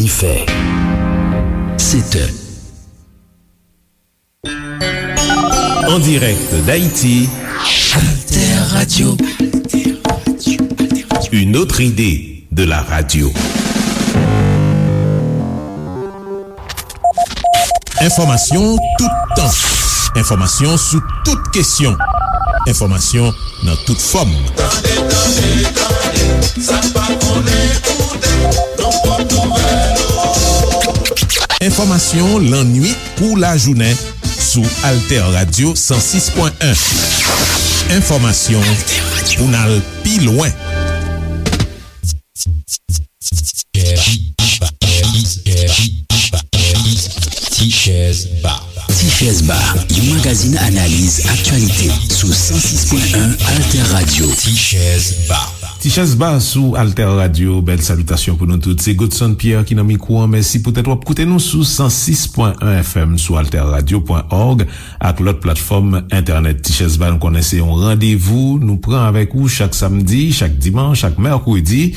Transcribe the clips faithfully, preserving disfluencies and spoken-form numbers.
Fè. Sèt è. En direct d'Haïti, Alter Radio. Une autre idée de la radio. Enfòmasyon toutan. Enfòmasyon sou tout kesyon. Enfòmasyon nan tout fòm. Tande, tande, tande, sa k pa konnen koute, nan pòt nouvèl ou. Enfòmasyon lannwit kou lajounen sou Alter Radio san sis pwen en. Enfòmasyon pou n al pi lwen. Tichèz Ba. Tichèz Ba, yon magazin analiz aktyalite sou san sis pwen en Alter Radio. Tichèz Ba. Tichèz Ba sou Alter Radio, bèl salitasyon pou nou tout. Se Godson Pierre ki nan mikwo an. Mèsi poutèt w ap koute nou sou san sis pwen en F M, sou alter radio pwen org ak lòt platfòm entènèt. Tichèz Ba, nou konnen se yon randevou nou pran avèk ou chak samdi, chak dimanch, chak mèkredi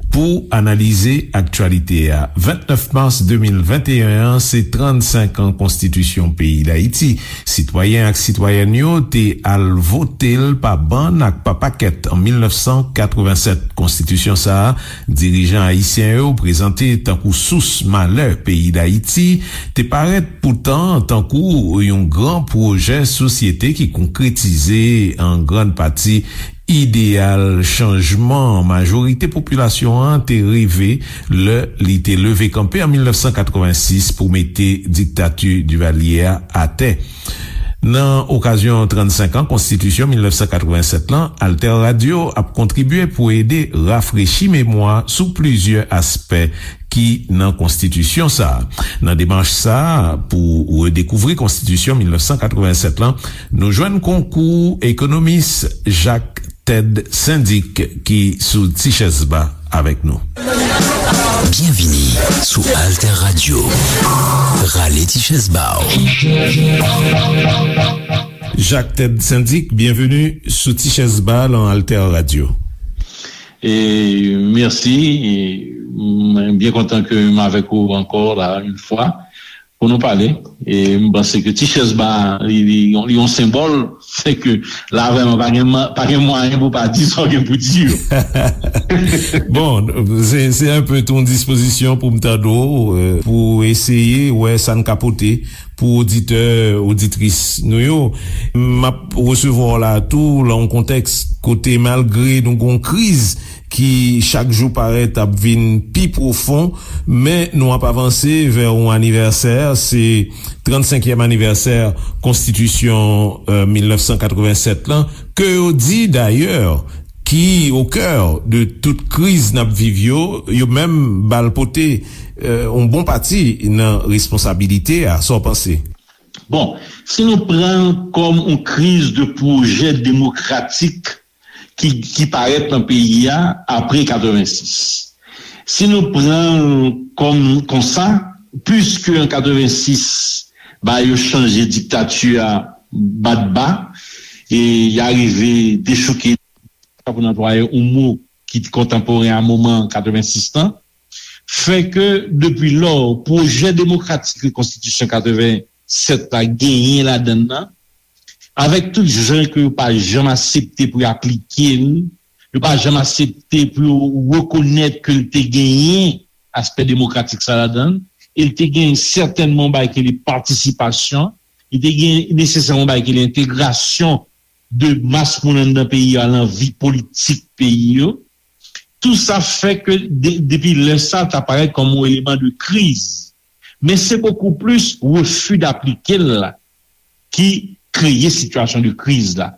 pou analize aktyalite a. Vennèf mas de mil venteyen an, se trannsenk an konstitisyon peyi Dayiti. Sitwayen ak sitwayèn yo te al vote l pa bann ak pa pakèt an mil nèf san katrevennsèt. Konstitisyon sa a, dirijan ayisyen yo prezante tankou sous malè peyi Dayiti, te parèt poutan tankou yon gran pwojè sosyete ki konkretize an grann pati ideyal chanjman majorite popilasyon an te reve lè li te leve kanpe an mil nèf san katrevensis pou mete diktati Divalye a atè. Nan okazyon trannsenk an konstitisyon mil nèf san katrevennsèt lan, Alter Radio ap kontribye pou ede rafrechi memwa sou plizyè aspè ki nan konstitisyon sa a. Nan demach sa a, pou redekouvri konstitisyon mil nèf san katrevennsèt lan, nou jwenn konkou ekonomis Jacques Ted Syndic ki sou Tichèz Ba avèk nou. Byenvini sou Alter Radio. Rale Tichèz Ba w. Jacques Ted Syndic, byenveni sou Tichèz Ba lan Alter Radio. E mèsi. E mwen byen kontan ke m avèk ou ankò la yon fwa pou nou pale. E m panse ke Tichèz Ba li, li, li yon senbòl, se ke la vrèman pa gen, pa gen mwayen pou pa di sa w gen pou di yo. Bon, se, se enpe tou yon dispozisyon pou m tande w, euh, pou eseye wè sa n ka pote pou oditè, oditris nou yo. M ap resevwa w la tou lan yon kontèks kote malgre nou gon kriz ki chak jou parèt ap vin pi pwofon, men nou ap avanse vè yon anivèsè, se trannsenkyèm anivèsè konstitisyon, euh, mil nèf san katrevennsèt lan, ke yo di dayè ki o kè de tout kriz n ap viv yo, yo menm ba l pote, euh, yon bon pati nan responsabilite a. Sa w panse? Bon, si nou pran l kòm yon kriz de pwojè demokratik ki, ki parèt nan peyi a apre katrevensis. Si nou pran l kòm konsa, piske an katrevensis, ba yo chanje diktati a bat ba, e y arive dechouke, pou n anplwaye yon mo ki kontanporen a moman katrevensis lan, fè ke depi lò, pwojè demokratik ke konstitisyon katreven sèt la genyen ladan l nan, avèk tout jan ke yo pa janm aksepte pou yo aplike l, yo pa janm aksepte pou yo rekonèt ke l te genyen aspè demokratik sa ladan l, e l te genyen sètènman yon bagay ki rele patisipasyon, li te gen nesesèman yon bagay ki rele entegrasyon de mas moun anndan peyi a lan vi politik peyi yo. Tou sa fè ke de, depi lè sa, ta parèt kòm yon eleman de kriz. Men se bokou plis refi d'aplike l la ki kreye sitiyasyon de kriz la.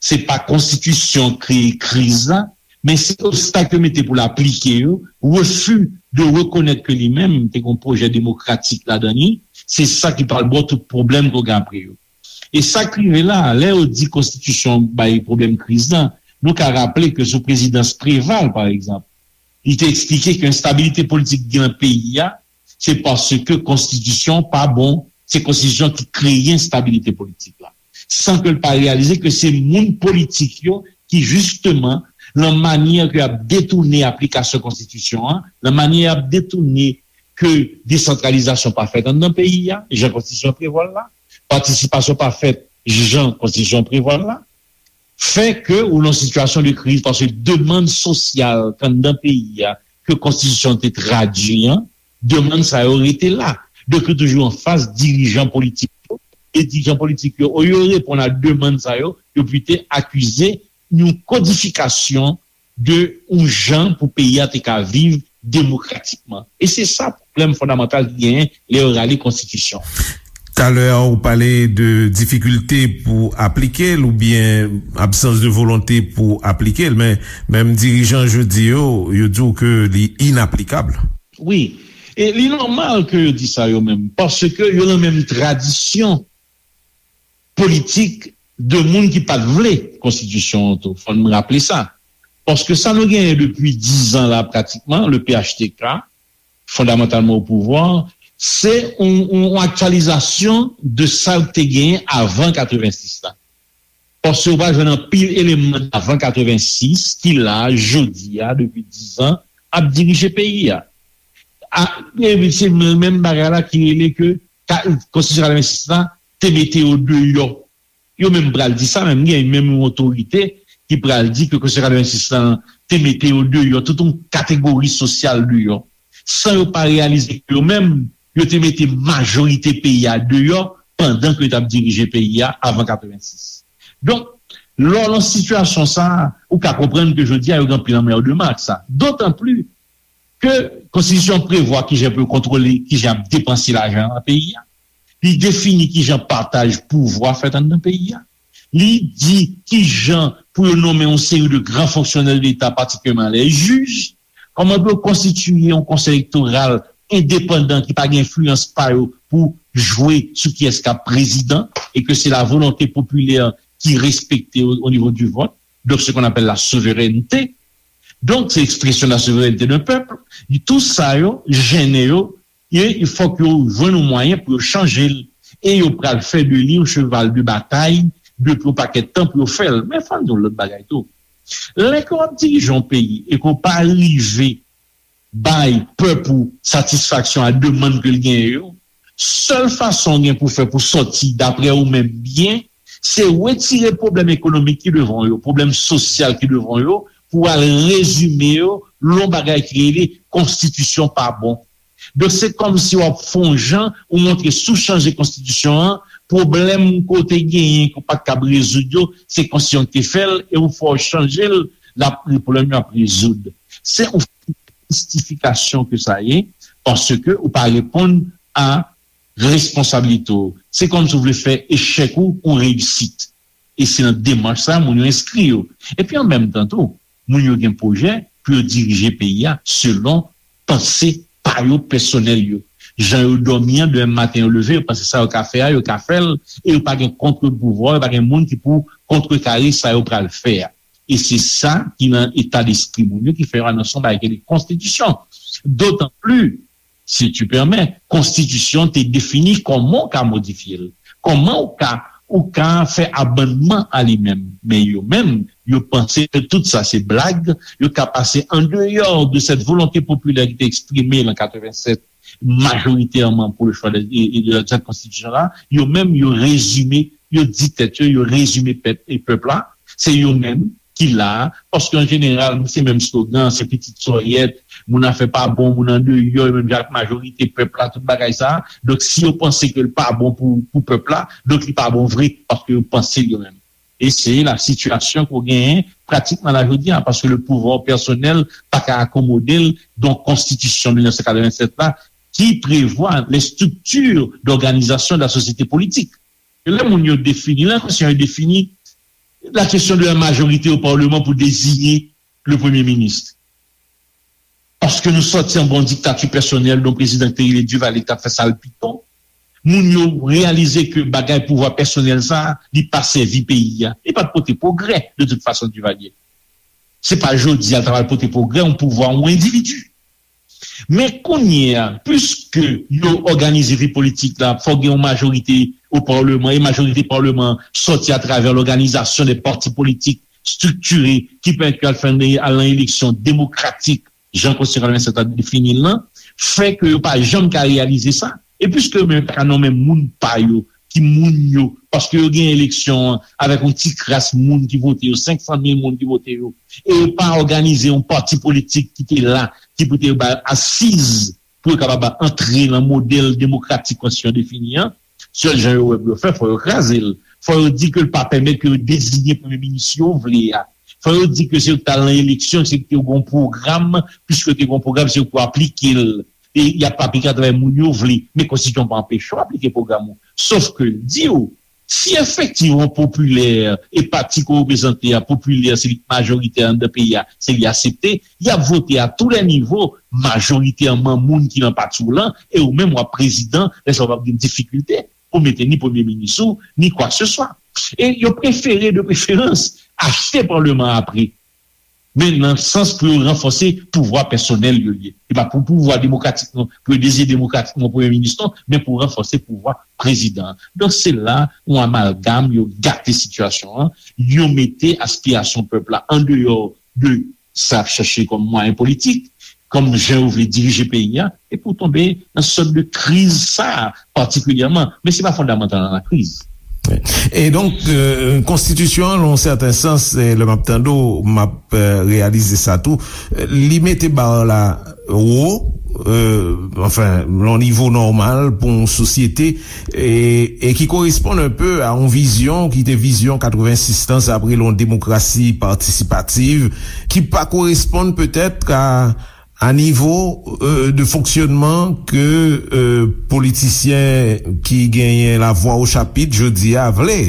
Se pa konstitisyon kreye kriz la, men se obstak yo mete pou l aplike yo, refi de rekonèt ke li menm te gen yon pwojè demokratik ladan li, se sa ki pral ba w tout pwoblèm ke w gen apre yo. E sa k rive la, lè yo di konstitisyon bay pwoblèm kriz lan, nou ka raple ke sou prezidans Preval, pa egzanp, li te eksplike ke enstabilite politik gen nan peyi a, se paske konstitisyon pa bon, se konstitisyon ki kreye enstabilite politik la. San ke l pa reyalize ke se moun politik yo ki, jisteman, lan manyè ke y ap detounen aplikasyon konstitisyon an, lan manyè y ap detounen ke desantralizasyon pa fèt anndan peyi a, jan konstitisyon prevwa l la, patisipasyon pa fèt jan konstitisyon prevwa l la, fè ke ou nan sitiyasyon de kriz, paske demann sosyal k anndan peyi a, ke konstitisyon te tradui an, demann sa yo rete la. Donk, yo toujou anfas dirijan politik yo, e dirijan politik yo, olye yo reponn a demann sa yo, yo plito akize yon kodifikasyon de yon jan pou peyi a te ka viv demokratikman. E se sa pwoblèm fondamantal ki genyen lè yo rale konstitisyon. Talè a, ou pale de difikilte pou aplike l oubyen absans de volonte pou aplike l, men menm dirijan jodi yo, yo di w ke li inaplikab. Wi. E li nòmal ke yo di sa yo menm, paske yo nan menm tradisyon politik de moun ki pa t vle konstitisyon an tou. Fò n raple sa. Paske sa nou genyen depi dizan la pratikman, le P H T K, fondamantalman o pouvwa, se yon, yon, yon aktyalizasyon de sa k te genyen avan katrevensis la. Paske ou pa jwenn anpil eleman avan katrevensis ki la, jodi a, depi dizan, ap dirije peyi a. A, e se menm bagay la ki rele ke ka, konstitisyon katrevensis la te mete yo deyò. Yo menm pral di sa, menm gen menm yon otorite ki pral di ke konstitisyon katrevensis la te mete yo deyò, tout yon kategori sosyal deyò, san yo pa reyalize ke yo menm, yo te mete majorite peyi a deyò pandan ke yo t ap dirije peyi a avan katrevensis. Donk, lè w nan sitiyasyon sa a, ou ka konprann ke jodi a yo gen anpil anmèdman ak sa. Dotan pli ke konstitisyon an prevwa kijan pou yo kontwole, kijan ap depanse lajan nan peyi a. Li defini kijan pataj pouvwa fèt anndan peyi a. Li di kijan pou yo nonmen yon seri de gran fonksyonè de Leta, patikilyèman lè jij, kòman pou yo konstitiye yon konsèy elektoral endepandan ki pa gen enfliyans pa yo pou jwe sou kiyès k ap prezidan e ke se la volonte popilè ki respekte o, o nivo di vòt. Donk, se qu'on appelle la souveraineté. Donk, se ekspresyon la souveraineté d'un peuple. Tou sa yo, jennen yo, e fòk yo jwenn yon mwayen pou yo chanje l. E yo pral fè de li yon cheval de batay depi yon pakèt tan pou yo fè l. Men fò n di yon lòt bagay tou. Lè ke w ap dirije yon peyi e ke w pa rive bay pèp ou satisfaksyon a demann ke l genyen yo, sèl fason w gen pou fè pou sòti, daprè ou menm, byen, se retire pwoblèm ekonomik ki devan w yo, pwoblèm sosyal ki devan w yo, pou w al rezime yo lè yon bagay ki rele konstitisyon pa bon. Donk, se kòmsi w ap fè yon jan, ou montre si w chanje konstitisyon an, pwoblèm ke w te genyen, ke w pa t kab rezoud yo, se konstitisyon ki te fè l, e ou fè w chanje l, l ap, pwoblèm yo ap rezoud. Se yon mistifikasyon ke sa ye, paske ou pa reponn a responsablite w. Se kòmsi w vle fè echèk ou yon reyisit. E se nan demach sa a moun yo enskri yo. Epi an menm tan tou, moun yo gen pwojè pou yo dirije peyi a selon panse pa yo pèsonèl yo. Jan yo dòmi an, demen maten yo leve, yo panse sa yo ka fè a, yo ka fè l, e yo pa gen kont-pouvwa, yo pa gen moun ki pou kontrekare sa yo pral fè a. E se sa ki nan eta despri moun yo ki fè yo anonse yon bagay ki rele konstitisyon. Dotan pli, si tu permets, konstitisyon te defini kòman w ka modifye l, kòman w ka, ou ka fè amannman a li menm. Men yo menm, yo panse ke tout sa se blag, yo ka pase andeyò de cette volonté populaire ki te eksprime an katrevennsèt, majoritèman pour le choix de, de, de cette constitution la, yo menm, yo rezime, yo di tèt yo, yo rezime pèp e pèp la, se yo menm ki la, paske an jeneral, se menm slogan, se pitit sòyèt, moun afè pa bon, moun andeyò, menm jan ak majorite pèp la, tout bagay sa. Donk, si yo panse ke l pa bon pou, pou pèp la, donk li pa bon vre, paske yo panse l yo menm. E se la sitiyasyon ke w genyen pratikman la jodi a, paske le pouvoir personnel pa ka akomode l, donk konstitisyon mil nèf san katrevennsèt la, ki prevwa les structures d'organisation de la société politique. E lè moun yo defini, lè konsèy yo defini la kesyon de la majorite o palman pou deziye le premye minis. Paske nou sòti anba yon diktati pèsonèl, yon prezidan ki te rele Duvalier ki t ap fè sa l pito. Moun yo reyalize ke bagay pouvwa pèsonèl sa a, li pa sèvi peyi a. Li pa t pote pwogrè, de tout fason, Duvalier. Se pa jodi a l ta pral pote pwogrè, yon pouvwa, yon endividi. Men kounye a, piske yo òganize vi politik la, fòk gen yon majorite o palman, e majorite palman sòti atravè lòganizasyon de pati politik estriktiye ki pèmèt yo al fè, al nan eleksyon demokratik. jan Konstitisyon katrevennsèt la defini l lan, fè ke yo pa janm ka reyalize sa. E piske yo menm pa ka nonmen moun pa yo, ki moun yo, paske yo gen eleksyon an avèk yon ti kras moun ki vote yo, senk san mil moun ki vote yo, e yo pa òganize yon pati politik ki te la, ki pou te ba asiz pou yo kapab antre nan modèl demokratik konstitisyon defini an, sèl jan yo wè pou yo fè, fò yo kraze l. Fò yo di ke l pa pèmèt ke yo deziye premye minis yo vle a. Fò yo di ke se yo k t al nan eleksyon, se yo ki te gen yon pwogram, piske yo te gen yon pwogram, se yo k pou aplike l. E y ap aplike atravè moun yo vle. Men konstitisyon pa anpeche w aplike pwogram ou. Sof ke l di w, si efektivman popilè e pati ke w reprezante a, popilè, se li k majoritè anndan peyi a, se li aksepte, y ap vote a tou lè nivo, majoritèman moun ki nan pati w lan, e ou menm w ap prezidan, lè sa w p ap gen difikilte pou mete ni premye minis ou, ni kwakeseswa. E yo prefere, de preferans, achte palman an apre. Men nan sans pou yo ranfòse pouvwa pèsonèl yo ye. E pa pou pouvwa demokratik non, pou yo deziye demokratikman premye minis non, men pou ranfòse pouvwa prezidan an. Donk se la yon amalgam, yo gate sitiyasyon an, yo mete aspirasyon pèp la andeyò de sa y ap chache kòm mwayen politik, kòm jan yo vle dirije peyi a, epi w tonbe nan sòt de kriz sa a patikilyèman. Men se pa fondamantal nan lakriz. E donk, euh, konstitisyon an, nan yon sèten sans, e lè m ap tande w, m ap euh, reyalize sa tou, euh, li mete ba la wo, euh, anfen, nan yon nivo nòmal pou yon sosyete, e, e ki koresponn un peu a yon vizyon ki te vizyon katrevensis tan, sa apre yon demokrasi patisipativ, ki pa koresponn petèt a a nivo euh, de fonksyonman ke euh, politisyen ki genyen lavwa o chapit jodi a vle.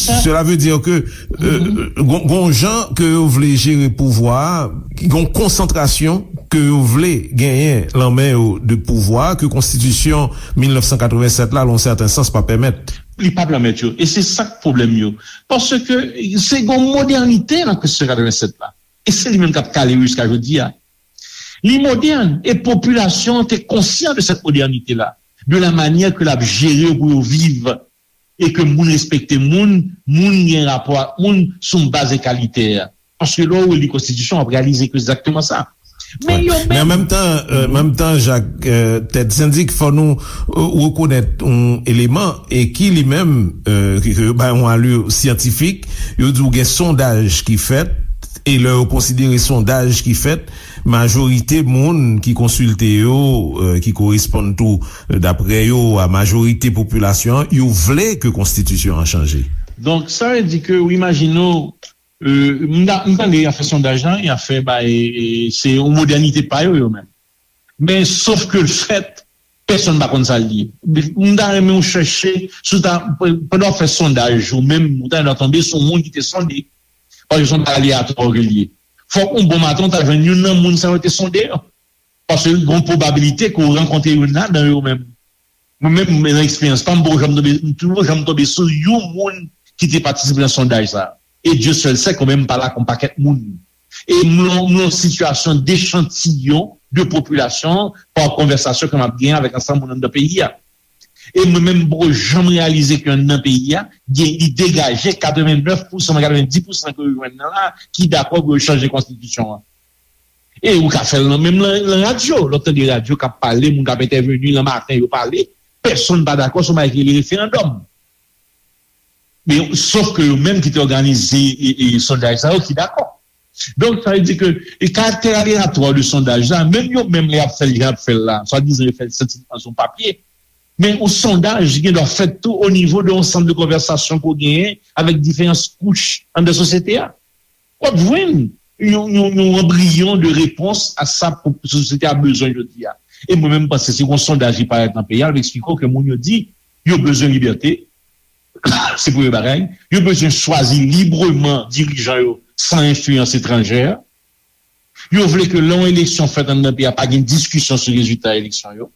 Sela vle di ke euh, gon jan ke yo vle jere pouvwa a, gon konsantrasyon ke yo vle genyen lan men yo de pouvwa ke konstitisyon mil nèf san katrevennsèt la, lan sèten sans, pa pèmèt. Li pa pèmèt yo. E se sa k pwoblèm yo. Paske se gon modènite nan konstitisyon katrevennsèt la. E se li menm k ap kale yo jiska jodi a. Li modèn, e popilasyon an te konsyan de cette modernité-là, de la manière ke l ap jere yo pou yo viv, e ke moun respekte moun, moun gen rapò ak moun sou yon baz egalitè. Paske lè w reli konstitisyon, w ap reyalize ke se egzakteman sa. Men yo menm. Men an menm tan, menm tan, Jak, Tèt Sendik, fò nou rekonèt yon eleman, e ki li menm, ke yo bay yon alè syantifik, yo di w gen sondaj ki fèt, e lè yo konsidere sondaj ki fèt, majorite moun ki konsilte yo, ki koresponn tou, daprè yo, a majorite popilasyon an, yo vle ke konstitisyon an chanje. Donk, sa vle di ke, w imajine w, m tande y ap fè sondaj la, y ap fè bay, se yon modènite pa yo, yo menm. Men, sof ke l fèt, pèsonn pa konn sa l ye. M ta renmen w chèche, si w ta, pandan w ap fè sondaj, ou menm, ou ta tonbe sou yon moun ki te sonde. Paske se yon bagay aleyatwa ke l ye. Fòk yon bon maten, w ta jwenn youn nan moun sa yo te sonde yo. Paske gen yon pwobabilite ke w rankontre youn ladan yo menm. Mwen menm, nan eksperyans pa m, m poko janm tonbe, m poko janm tonbe sou yon moun ki te patisipe nan sondaj sa a. E Dye sèl sè ke mwen menm m pale ak yon pakèt moun. E m nan yon sitiyasyon dechantiyon de popilasyon an pa konvèsasyon ke m ap genyen avèk ansanm moun anndan peyi a. E mwen menm, m poko janm reyalize ke anndan peyi a, gen, li degaje katrevennèf pousan, katrevendis pousan ke yo jwenn nan la, ki dakò pou yo chanje konstitisyon an. E ou ka fè l nan, menm nan, nan radyo, lè w tande radyo k ap pale, moun k ap entèveni, nan maten yo pale, pèsonn pa dakò sou bagay ki rele referandòm. Men, sof ke yo menm ki te òganize e, e, sondaj sa yo ki dakò. Donk, sa vle di ke e karaktè aleyatwa de sondaj la, menm yo menm lè y ap fè l, jan y ap fè l la, swadizan yo fè l syantifik sou papye, men yon sondaj gen dwa fèt tou o nivo de yon sant de konvèsasyon ke w genyen avèk diferan kouch anndan sosyete a. W ap jwenn yon, yon, yon anbriyon de repons a sa sosyete a bezwen jodi a. E mwen menm, m panse si yon sondaj ki parèt nan peyi a, l ap eksplike w ke moun yo di yo bezwen libète, se premye bagay. Yo bezwen chwazi libreman dirijan yo san enfliyans etranjè. Yo vle ke lè yon eleksyon fèt anndan peyi a, pa gen diskisyon sou rezilta eleksyon yo.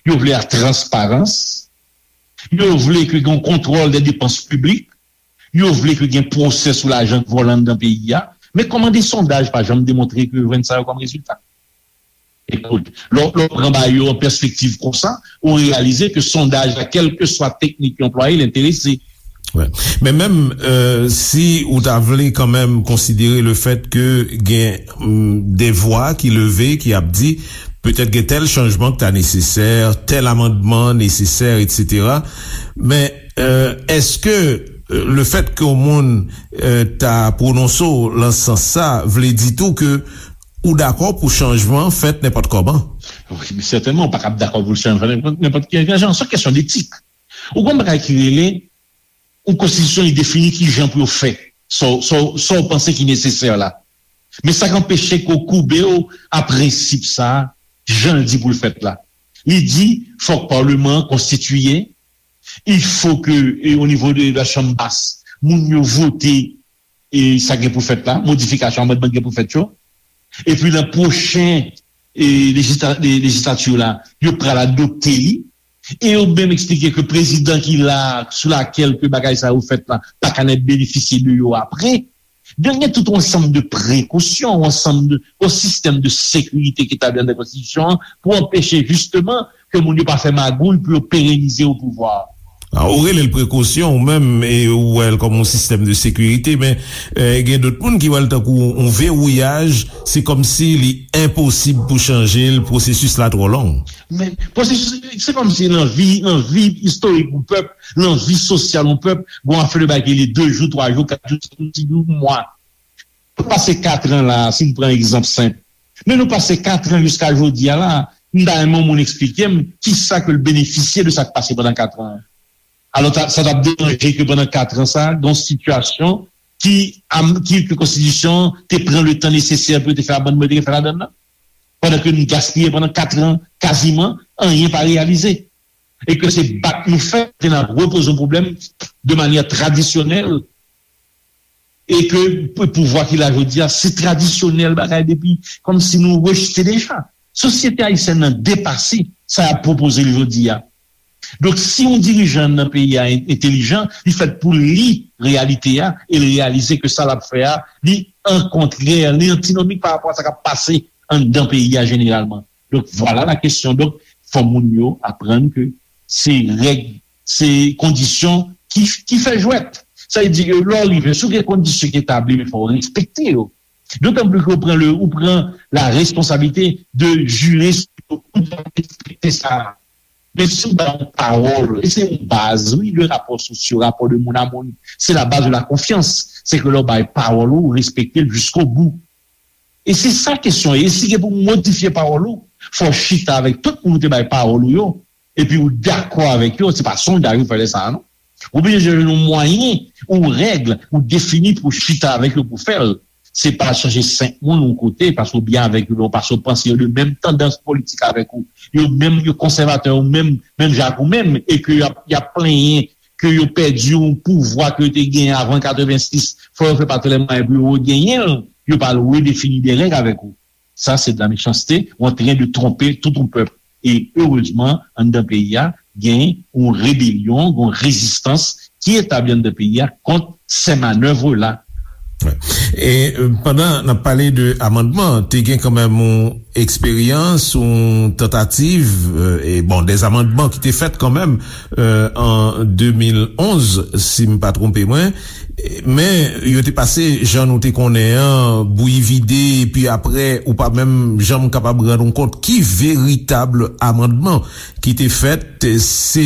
Yo vle la transparans. Yo vle ke gen yon kontwòl de depans piblik. Yo vle ke gen pwosè sou lajan k vòlè anndan peyi a. Men kòman de sondaj pa janm demontre ke yo jwenn sa yo kòm rezilta? Ekout, lè w, lè w pran bagay yo an pèspektiv konsa, ou reyalize ke sondaj la, kèlkeswa teknik yo anplwaye, l enterese. Wè. Men menm, euh, si ou ta vle kanmenm konsidere le fèt ke gen, mm, de vwa ki leve, ki ap di, petèt gen tèl chanjman ki ta nesesè, tèl amandman nesesè, etsetera. Men, euh, èske, euh, le fèt ke yon moun, euh, ta pwononse w lan sans sa, vle di tou ke ou dakò pou chanjman fèt nenpòt kòman? Wi, men sètènman, ou pa kab dakò pou chanjman fèt nenpòt, nenpòt ki jan. Se yon kesyon detik. Ou gon bagay ki rele yon konstitisyon, li defini ki jan pou yo fè sa w, sa w, sa w panse ki nesesè la. Men sa k anpeche ke w koube w a prensip sa a, jan l di pou l fèt la. Li di, fòk paleman an konstitiye, il faut que, e, o nivo de la chanm bas, moun yo vote, e, sa gen pou fèt la, modifikasyon, amandman gen pou fèt yo. Epi nan pwochen, e, lejista-, le-, lejislati la, yo pral adopte li. E yo menm eksplike ke prezidan ki la, sou lakèl ke bagay sa yo fèt la, pa ka nèt benefisye de yo apre. Donk, gen tout yon ansanm de prekosyon, yon ansanm de, yon sistèm de sekirite ki etabli anndan konstitisyon an pou anpeche jisteman ke moun yo pa fè magouy pou yo perenize o pouvwa. A, ou rele l prekosyon, ou menm, e ou wè l kòm yon sistèm de sekirite, men, e, gen dòt moun ki wè l tankou yon vewouyaj, se kòmsi li enposib pou chanje l, pwosesis la twò long. Men pwosesis, se kòmsi nan vi, nan vi istorik yon pèp, nan vi sosyal yon pèp, gon afè de bagay ki rele de jou, twa jou, kat jou, senk jou, yon mwa. Nou pase katran la, si n pran egzanp senp. Men nou pase katran jiska jodi a la, m ta renmen yon moun eksplike m kisa ke l benefisye de sa k pase pandan katran an. Alò, ta, sa t ap deranje ke pandan katran sa, gen yon sitiyasyon ki, am, ki, ke konstitisyon an te pran le tan nesesè pou yo te fè amandman yo te gen fè ladann nan. Pandan ke nou gaspiye pandan katran, kaziman, anyen pa reyalize. E ke se bat nou fè, ke n ap repoze yon pwoblèm de manyè tradisyonèl, e ke pou-, pouvwa ki la jodi a, se tradisyonèl bagay depi, kòmsi nou rejte deja. Sosyete ayisyèn nan depase sa y ap pwopoze l jodi a. Donk, si yon dirijan nan peyi a en-, entelijan, li fèt pou li reyalite a, e l reyalize ke sa l ap fè a, li an kontrè, li antinomik pa rapò a sa k ap pase anndan peyi a jeneralman. Donk, vwala la kesyon. Donk, fò moun yo aprann ke se règ, se kondisyon ki, ki fè jwèt. Sa vle di ke lè w rive, si w gen kondisyon ki etabli, men fò w respekte yo. Dotan plis ke w pran le, ou pran la responsablite de jire sou yo, ou dwe respekte sa. Men si w bay yon pawòl, e se yon baz, wi, de rapò sosyo, rapò de moun a moun, se la baz de la konfyans. Se ke lè w bay pawòl ou, ou respekte l jiskobou. E se sa kesyon an ye. E si gen pou modifye pawòl ou, fò w chita avèk tout moun ou te bay pawòl ou yo, epi ou dakò avèk yo, se pa sondaj ou fè lè sa a, non. Ou oblije jwenn yon mwayen, yon règ, ou defini pou chita avèk yo pou fè l. Se pa chanje senk moun yon kote, paske w byen avèk yo, paske w panse yo de menm tandans politik avèk ou. Yo menm, yo konsèvatè, yo menm, menm jan ak ou menm, e ke y ap, y ap plenyen ke yo pèdi yon pouvwa ke yo te genyen avan katrevensis, fò yo fè pa tout lè mwayen pou yo regenyen l, yo pral redefini de règ avèk ou. Sa se de la mechanste, ou antren de twonpe tout yon pèp. E erezman, anndan peyi a, gen yon rebelyon, gen yon rezistans ki etabli anndan peyi a kont sè manèv la. E, euh, pandan n ap pale de amandman, te gen kanmenm yon eksperyans, yon tantativ, euh, e bon, des amandman ki te fèt kanmenm, euh, an de mil onz, si m pa twonpe mwen. Men, yo te pase, jan nou te konnen an, bouyi vide, epi apre, ou pa menm janm kapab rann ou kont ki veritab amandman ki te fèt. Se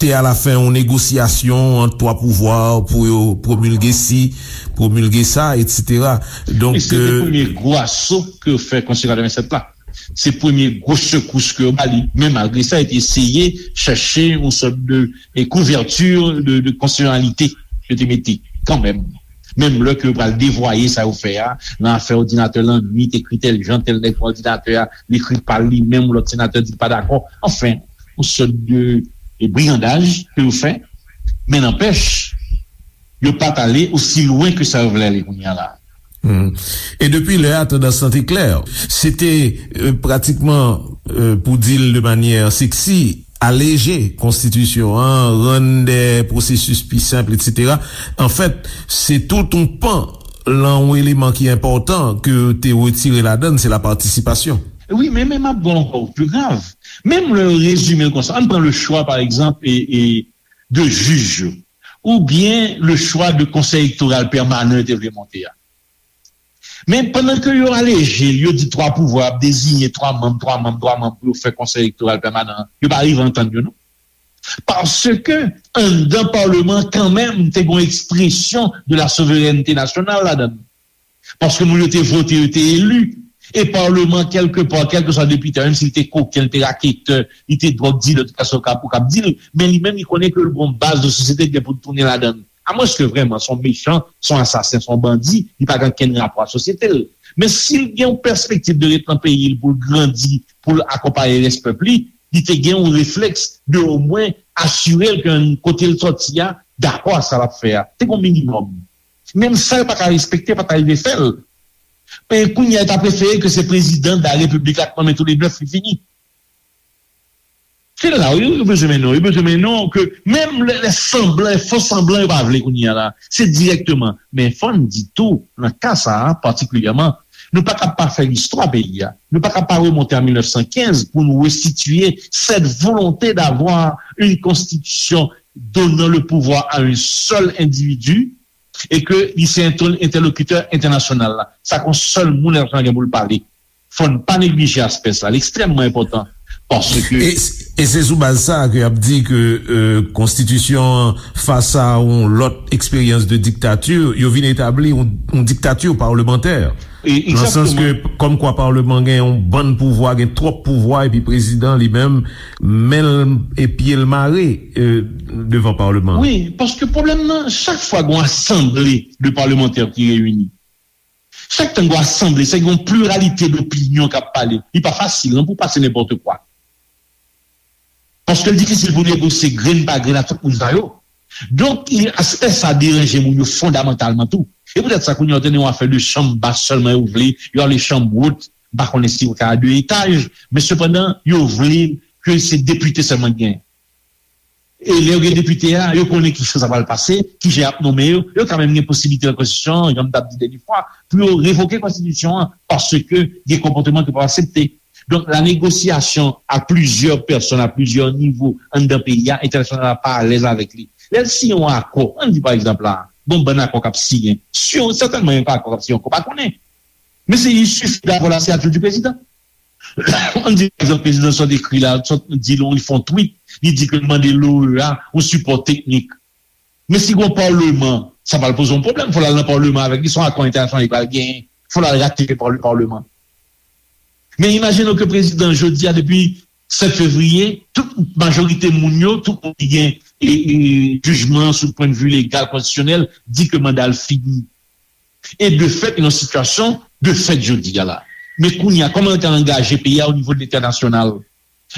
te alafen yon negosyasyon ant twa pouvwa pou yo pwomilge si, pwomilge sa, etsetera. Donk, e se te, euh, premye gwo aso ke yo fè Konstitisyon katrevennsèt la. Se premye gwo sekous ke yo ba li, men malgre sa, yo te eseye chèche yon sòt de, e, kouvèti de, de konstitisyonalite yo te mete kanmenm. Menm lè ke yo pral devwaye sa yo fè a, nan afè òdinatè lannwit, ekri tèl jan, tèl nèg pran òdinatè a, li ekri pa l li menm, lòt senatè di l pa dakò. Anfen, yon sòt de, de brigandaj ke yo fè. Men nanpèch, yo pa t ale osi lwen ke sa yo vle ale kounye a la. Hmm. E depi lè a, tandans lan te klè. Se te, euh, pratikman, euh, pou di l de manyè seksi, aleje konstitisyon an, rann de pwosesis pi senp, etsetera. Anfèt, se tout yon pan lan yon eleman ki enpòtan ke te retire ladan l, se la patisipasyon. Wi, men, men m ap ba w ankò pi grav. Menm lè yo rezime l konsa, ann pran le chwa, pa egzanp, e, e de jij yo. oubyen le chwa de Konsèy Elektoral Pèmanan yo te vle monte a. Men pandan ke yo aleje l, yo di twa pouvwa ap deziyen twa manm, twa manm, twa manm pou yo fè Konsèy Elektoral Pèmanan an, yo pa rive antann yo non. Paske anndan Palman kanmenm te gen yon ekspresyon de la souverènte nasyonal ladan l. Paske moun yo te vote, yo te eli. E Palman, kèlkepa, kèlkeswa depite a, menm si l te koken, l te raketè, li te dwòg dilè, tout sa w ka, ou kab di l, men li menm, li konnen ke l gen yon baz de sosyete ki gen pou l tounen ladan l. Amwenske vrèman se yon mechan, se yon asasen, se yon bandi, li pa gen okenn rapò a sosyete l. Men si l gen yon pèspektiv de ret nan peyi l pou l grandi, pou l akonpaye rès pèp li, li te gen yon reflèks de omwen asire l ke kote l sòti a dakò a sa l ap fè a. Te gen yon minimòm. Menm sa yo pa ka respekte, pa ta rive fè l. Men kounye a yo ta prefere ke se prezidan de la repiblik la k nonmen tou le nèf li fini. Se la wi, yo bezwen mennen w, yo bezwen mennen w ke menm lè, lè sanblan, lè fo sanblan yo pa vle kounye a la. Se dirèkteman. Men fò n di tou, nan ka sa a patikilyèman, nou pa kab pa fè listwa peyi a. Nou pa kab pa remonte an mil nèf san kenz pou nou resitye cette volonté d'avoir une constitution donnant le pouvoir à un seul individu et que li se entèlokitè entènasyonal la. Sa k yon sèl moun Ètranje pou l pale. Fò n pa neglije aspè sa, li ekstrèmman enpòtan. Paske e, e se sou baz sa ke y ap di ke euh, konstitisyon an fas a yon lòt eksperyans de diktati, yo vin etabli yon, yon diktati palmantè. Nan sans ke kòmkwa palman gen yon bann pouvwa, gen twòp pouvwa, epi prezidan li menm, men l e pye l mare euh, devan palman. Wi, paske pwoblèm nan, chak fwa gen yon asanble de palmantè ki reyini, chak tan gen yon asanble, se gen yon pliralite dopinyon k ap pale. Li pa fasil non pou pase nenpòt kwa. Paske l difisil pou negosye grenn pa grenn ak tout moun sa yo. Donk, aspè sa deranje moun yo fondamantalman tou. E poutèt sa, kounye a, w tande yon afè de chanm bas sèlman yo vle, yo ale chanm wot, m pa konnen si yo ka de etaj, men sepandan, yo vle ke se depite sèlman ki genyen. E lè yo gen depite a, yo konnen kijan sa pral pase, kijan y ap nonmen yo, yo ka menm gen posiblite nan konstitisyon an, jan m t ap di dènye fwa, pou yo revoke konstitisyon an, paske gen konpòteman ke yo p ap aksepte. Donk, la négociation à plusieurs personnes, à plusieurs niveaux, anndan peyi a, entènasyonal la pa alèz avèk li. Lè l siyen yon akò, ann di pa egzanp la, gon bann akò k ap siyen, si yon, sètènman yon akò k ap siyen ankò, pa konnen. Men se il suffit d'avoir la signature du président. Ann di pa egzanp prezidan sa w ekri la, sa w di l, li fè yon tweet, li di ke l mande l'OEA yon sipò teknik. Men si gon palman, sa pral poze yon pwoblèm, fò l al nan palman avèk li, se yon akò entènasyonal li pral genyen, fò l al ratifye pa le palman. Men imajine w ke prezidan jodi a, depi sèt fevriye, tout majorite moun yo, tout moun ki gen e, e, jijman sou pwennvi legal, konstitisyonèl, di ke manda l fini. E de fèt, yon sitiyasyon de fèt jodi a la. Men kounye a, kòman yo te angaje peyi a o nivo de lentènasyonal?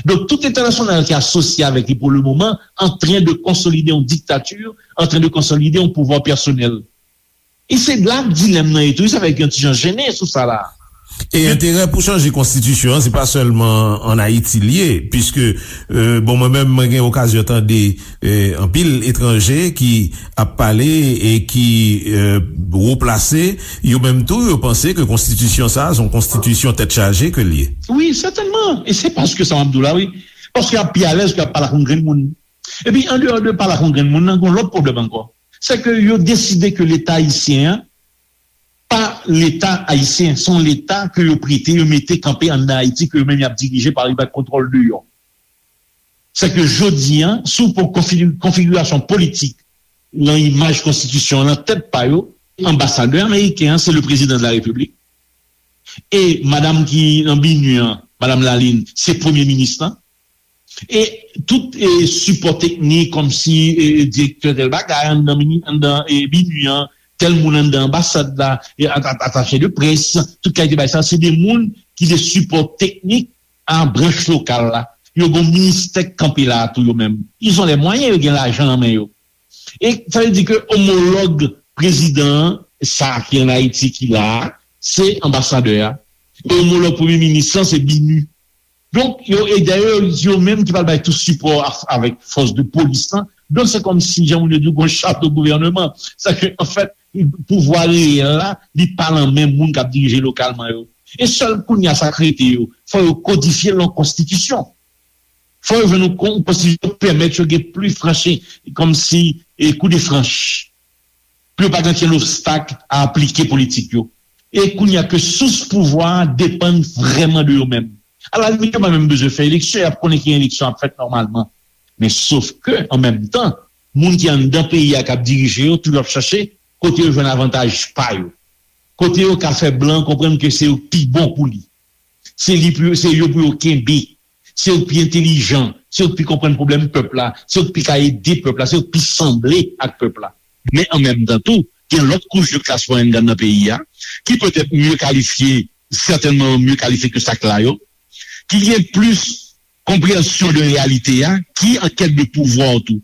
Donk, tout lentènasyonal ki asosye avèk li pou le moman, antren de konsolide yon diktati, antren de konsolide yon pouvwa pèsonèl. E se la dilèm nan ye tou, sa fè gen yon ti jan jennen sou sa la. E enterè pou chanje konstitisyon an, se pa sèlman ann Ayiti l ye, piske, euh, bon, mwen menm, mwen gen okazyon tande euh, anpil etranje ki ap pale e ki euh, wo plase, yo menm tou, yo panse ke konstitisyon sa a se yon konstitisyon tèt chaje ke l ye. Wi, sètènman. E se paske sa m ap di w la, wi. Paske y ap pi alèz ke y ap pale ak yon grenn moun. Epi, andeyò de pale ak yon grenn moun nan, gen yon lòt pwoblèm ankò. Se ke yo deside ke Leta ayisyen an, pa Leta ayisyen, se yon Leta ke yo prete, yo mete kanpe anndan Ayiti, ke yo menm y ap dirije pa li bay kontwòl deyò. Se ke jodi a, si w pran konfi-, konfigirasyon politik nan imaj konstitisyon an, nan tèt pa yo, anbasadè ameriken an, se le président de la République. E madanm ki nan BINUH an, madanm Lalin, se premye minis lan. E tout e, sipò teknik, kòmsi e, direktè tèl bagay anndan, mini, anndan e, BINUH an, tèl moun anndan anbasad la, e, at-, at-, atache de près, tout kalite bagay sa, se de moun ki de sipò teknik a branch lokal la. Yo gen yon ministè k kanpe la a tou yo menm. Ils ont les moyens, yo gen lajan nan men yo. E sa vle di ke omològ prezidan an, sa ki ann Ayiti ki la a, se anbasadè a. E omològ premye minis lan, se BINUH. Donk, yo, e dayè, yo menm ki pral bay tout sipò a, avèk fòs de polis lan. Donk, se kòmsi, jan moun yo di, gon chato gouvèneman. Sa ke, anfèt, pouvwa reyèl la, li pa nan men moun k ap dirije lokalman yo. E sèl kounye a sa k rete yo, fò yo kodifye l nan konstitisyon. Fò yo jwenn yon kon-, konstitisyon ki pèmèt yo gen pli franchi, kòmsi e kou de franch, pou yo pa gen okenn obstak a aplike politik yo. E kounye a ke sous pouvwa a depann vrèman de yo menm. Alalimit, yo pa menm bezwen fè eleksyon, y ap konnen ki eleksyon ap fèt nòmalman. Men sof ke, an menm tan, moun ki anndan peyi a k ap dirije yo, toujou ap chache kote yo jwenn avantaj pa yo. Kote yo ka fè blan konprann ke se yo k pi bon pou li. Se li pou yo, se yo pou yo kenbe. Se yo k pi entelijan, se yo k pi konprann pwoblèm pèp la, se yo k pi ka ede pèp la, se yo k pi sanble ak pèp la. Men an menm tan tou, gen lòt kouch de klas mwayèn k anndan peyi a, ki petèt mye kalifye, sètènman mye kalifye ke sa k la yo, ki gen plis konpreyansyon de reyalite a, ki an kèt de pouvwa tou.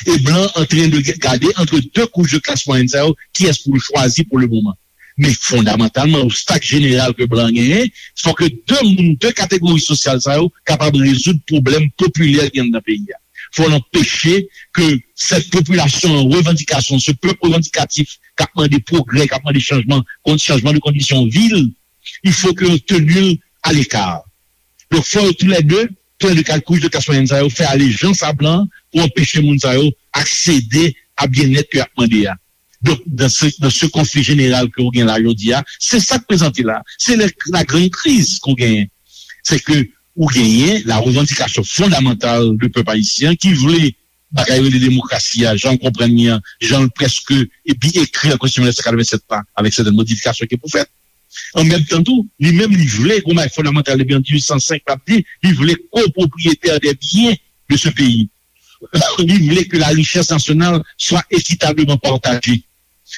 E blan an tren de gade antre de kouch de klas mwayèn sa yo, kiyès pou l chwazi pou le moman. Men fondamantalman, obstak jeneral ke blan genyen, fò ke de moun, de kategori sosyal sa yo kapab rezoud pwoblèm popilè ki anndan peyi a. Fò n anpeche ke sèt popilasyon an revandikasyon, se pèp revandikatif k ap mande pwogrè, k ap mande chanjman, kon- chanjman de kondisyon vi l, il faut que yo teni l aleka. Donk, fò yo toulède, toulède kat kouch de klas mwayèn sa yo, fè alejans a blan pou anpeche moun sa yo aksede a byennèt ke y ap mande a. Donk, dans ce, dans ce conflit général ke w gen la jodi a, se sa k prezante la. Se la, la grande crise ke w genyen. Se ke ou genyen la revandikasyon fondamantal de pèp ayisyen ki vle bagay rele demokrasi a, jan l konprann li an, jan l prèske epi ekri an Konstitisyon mil nèf san katrevennsèt la, avèk sètèn modifikasyon ki pou fèt. An menm tan tou, li menm li vle, gon bagay fondamantal depi an dizuit san senk l ap di, li vle kopwopriyetè de byen de se peyi. Li vle ke la richès nasyonal swa ekitableman pataje.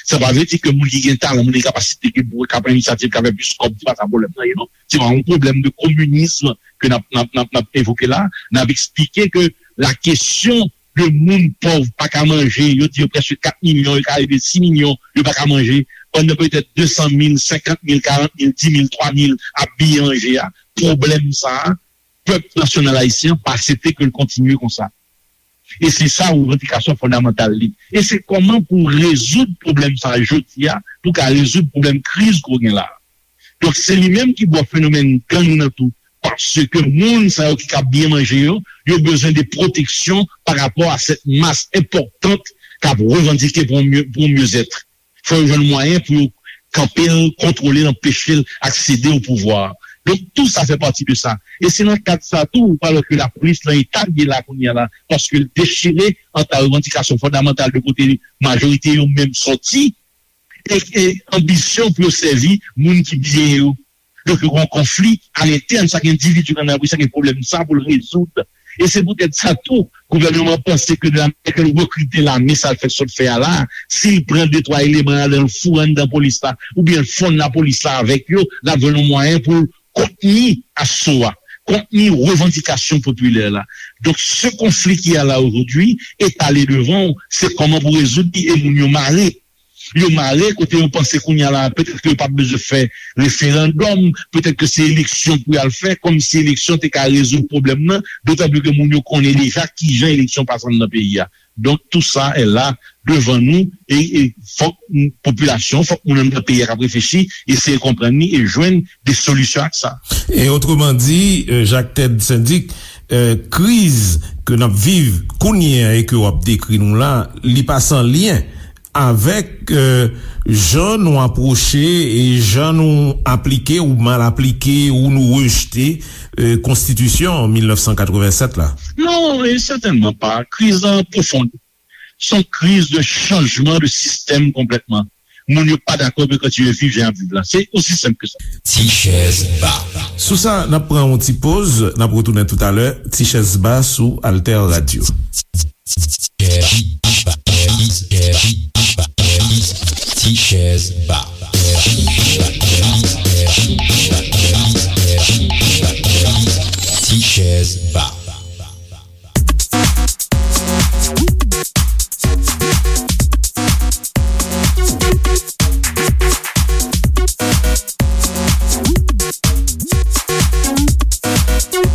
Sa pa vle di ke moun ki gen talan, moun ki gen kapasite, ki pou ka pran inisyativ, ka fè plis kòb, se pa sa pwoblèm nan ye non. Se pa yon pwoblèm de kominism ke n ap, n ap, n ap, n ap evoke la. N ap eksplike ke la kesyon de moun pòv pa ka manje, yo di yo prèske kat milyon, yo ka rive sis milyon, yo pa ka manje, pandan petèt de san mil, senkant mil, karant mil, di mil, twa mil ap biye manje a, pwoblèm sa a, pèp nasyonal ayisyen an pa aksepte ke l kontinye konsa. E se sa revandikasyon fondamantal li. E se kòman pou rezoud pwoblèm sa a jodi a, pou ka rezoud pwoblèm kriz ke w gen la a. Donk, se li menm ki bò fenomèn gang nan tou. Paske moun sa yo ki ka byen manje yo, yo bezwen de pwoteksyon pa rapò a sèt mas enpòtan k ap revandike pou yon mye, pou yon myezèt. Fò yo jwenn mwayen pou yo kanpe l, kontwole l, anpeche l aksede o pouvwa. Donk, tou sa fè pati de sa. E se nan kad sa tou, ou pral wè ke lapolis nan eta l ye la kounye a la, paske l dechire ant la revandikasyon fondamantal de kote majorite yo menm sòti, e, e anbisyon pou yo sèvi moun ki byen yo. Donk, yo gen yon konfli alentèn chak endividi nan lapolis la, gen pwoblèm sa pou l rezoud. E se poutèt sa tou, gouvènman an panse ke de la manière ke l rekrite lame, sa l fè sot fè a la, si l pran de twa eleman ladan l foure anndan polis la, oubyen l fonn lapolis la avèk yo, l ap jwenn yon mwayen pou l kontni aso a, kontni revandikasyon popilè la. Donk, se konfli ki a la ojodwi, etale devan w, se kòman pou rezoud li e moun yo mare. Yo mare kote yo panse kounye a la, petèt ke yo p ap bezwen fè referandòm, petèt ke se eleksyon pou y al fè, kòmsi eleksyon te ka rezoud pwoblèm nan, dotan pli ke moun yo konnen deja kijan eleksyon pase anndan peyi a. Donk, tou sa est là devan nou, e, e fòk popilasyon, fòk moun anndan peyi a k ap reflechi, eseye konprann li e jwenn de solisyon ak sa. E otreman di, euh, Jacques Ted Syndic, euh, kriz ke n ap viv kounye a e ke w ap dekri nou la, li pa san lyen avèk, euh, jan nou apwoche e jan nou aplike ou mal aplike ou nou rejte, euh, konstitisyon mil nèf san katrevennsèt la. Non, e sètènman pa. Kriz lan pwofon. Se yon kriz de chanjman de sistèm konplètman. Moun yo pa dakò pou yo kontinye viv jan y ap viv la. Se osi senp ke sa. Ti chèz ba. Sou sa, n ap pran yon ti poz, n ap retounen toutalè. Ti chèz ba sou Alter Radio. Ti chèz ba. Ti chèz ba.